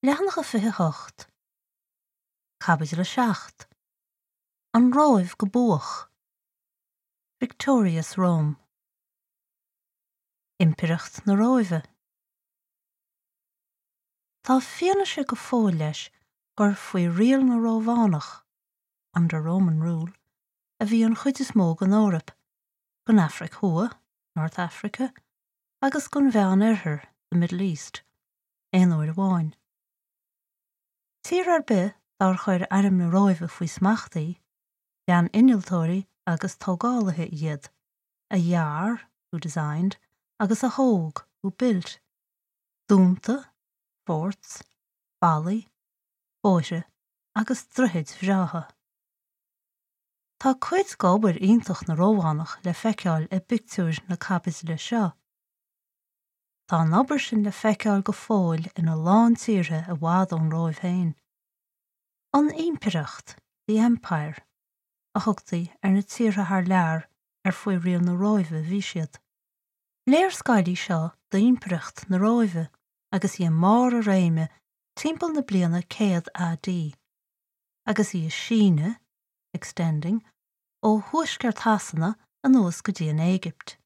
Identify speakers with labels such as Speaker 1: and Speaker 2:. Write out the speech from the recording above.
Speaker 1: Leathanach 28, Caibidil 7, An Róimh go Buach, Victorious Rome. Impireacht na Róimhe. Tá fianaise go fóill leis gur faoi riail na Rómhánach, under Roman rule, a bhí an chuid is mó den Eoraip, den Afraic Thuaidh, North Africa, agus den Mheán-Oirthear, the Middle East, aon uair amháin. Tír ar bith dár chuir airm na Róimhe faoi smacht í, lean innealtóirí agus tógálaithe iad, a dhear, who designed, agus a thóg, who built, dúnta, forts, ballaí, bóithre agus droichid bhreátha. Tá cuid d'obair iontach na Rómhánach le feiceáil i bpictiúir na caibidle seo. Tá an obair sin le feiceáil go fóill ina lán tíortha i bhfad ón Róimh féin. An Impireacht, the Empire, a thugtaí ar na tíortha thar lear ar faoi riail na Róimhe a bhí siad. Léarscáil í seo d'Impireacht na Róimhe agus í i mbarr a réime timpeall na bliana 100 AD, agus í ag síneadh, extending, ó thuaisceart Shasana anuas go dtí an Éigipt.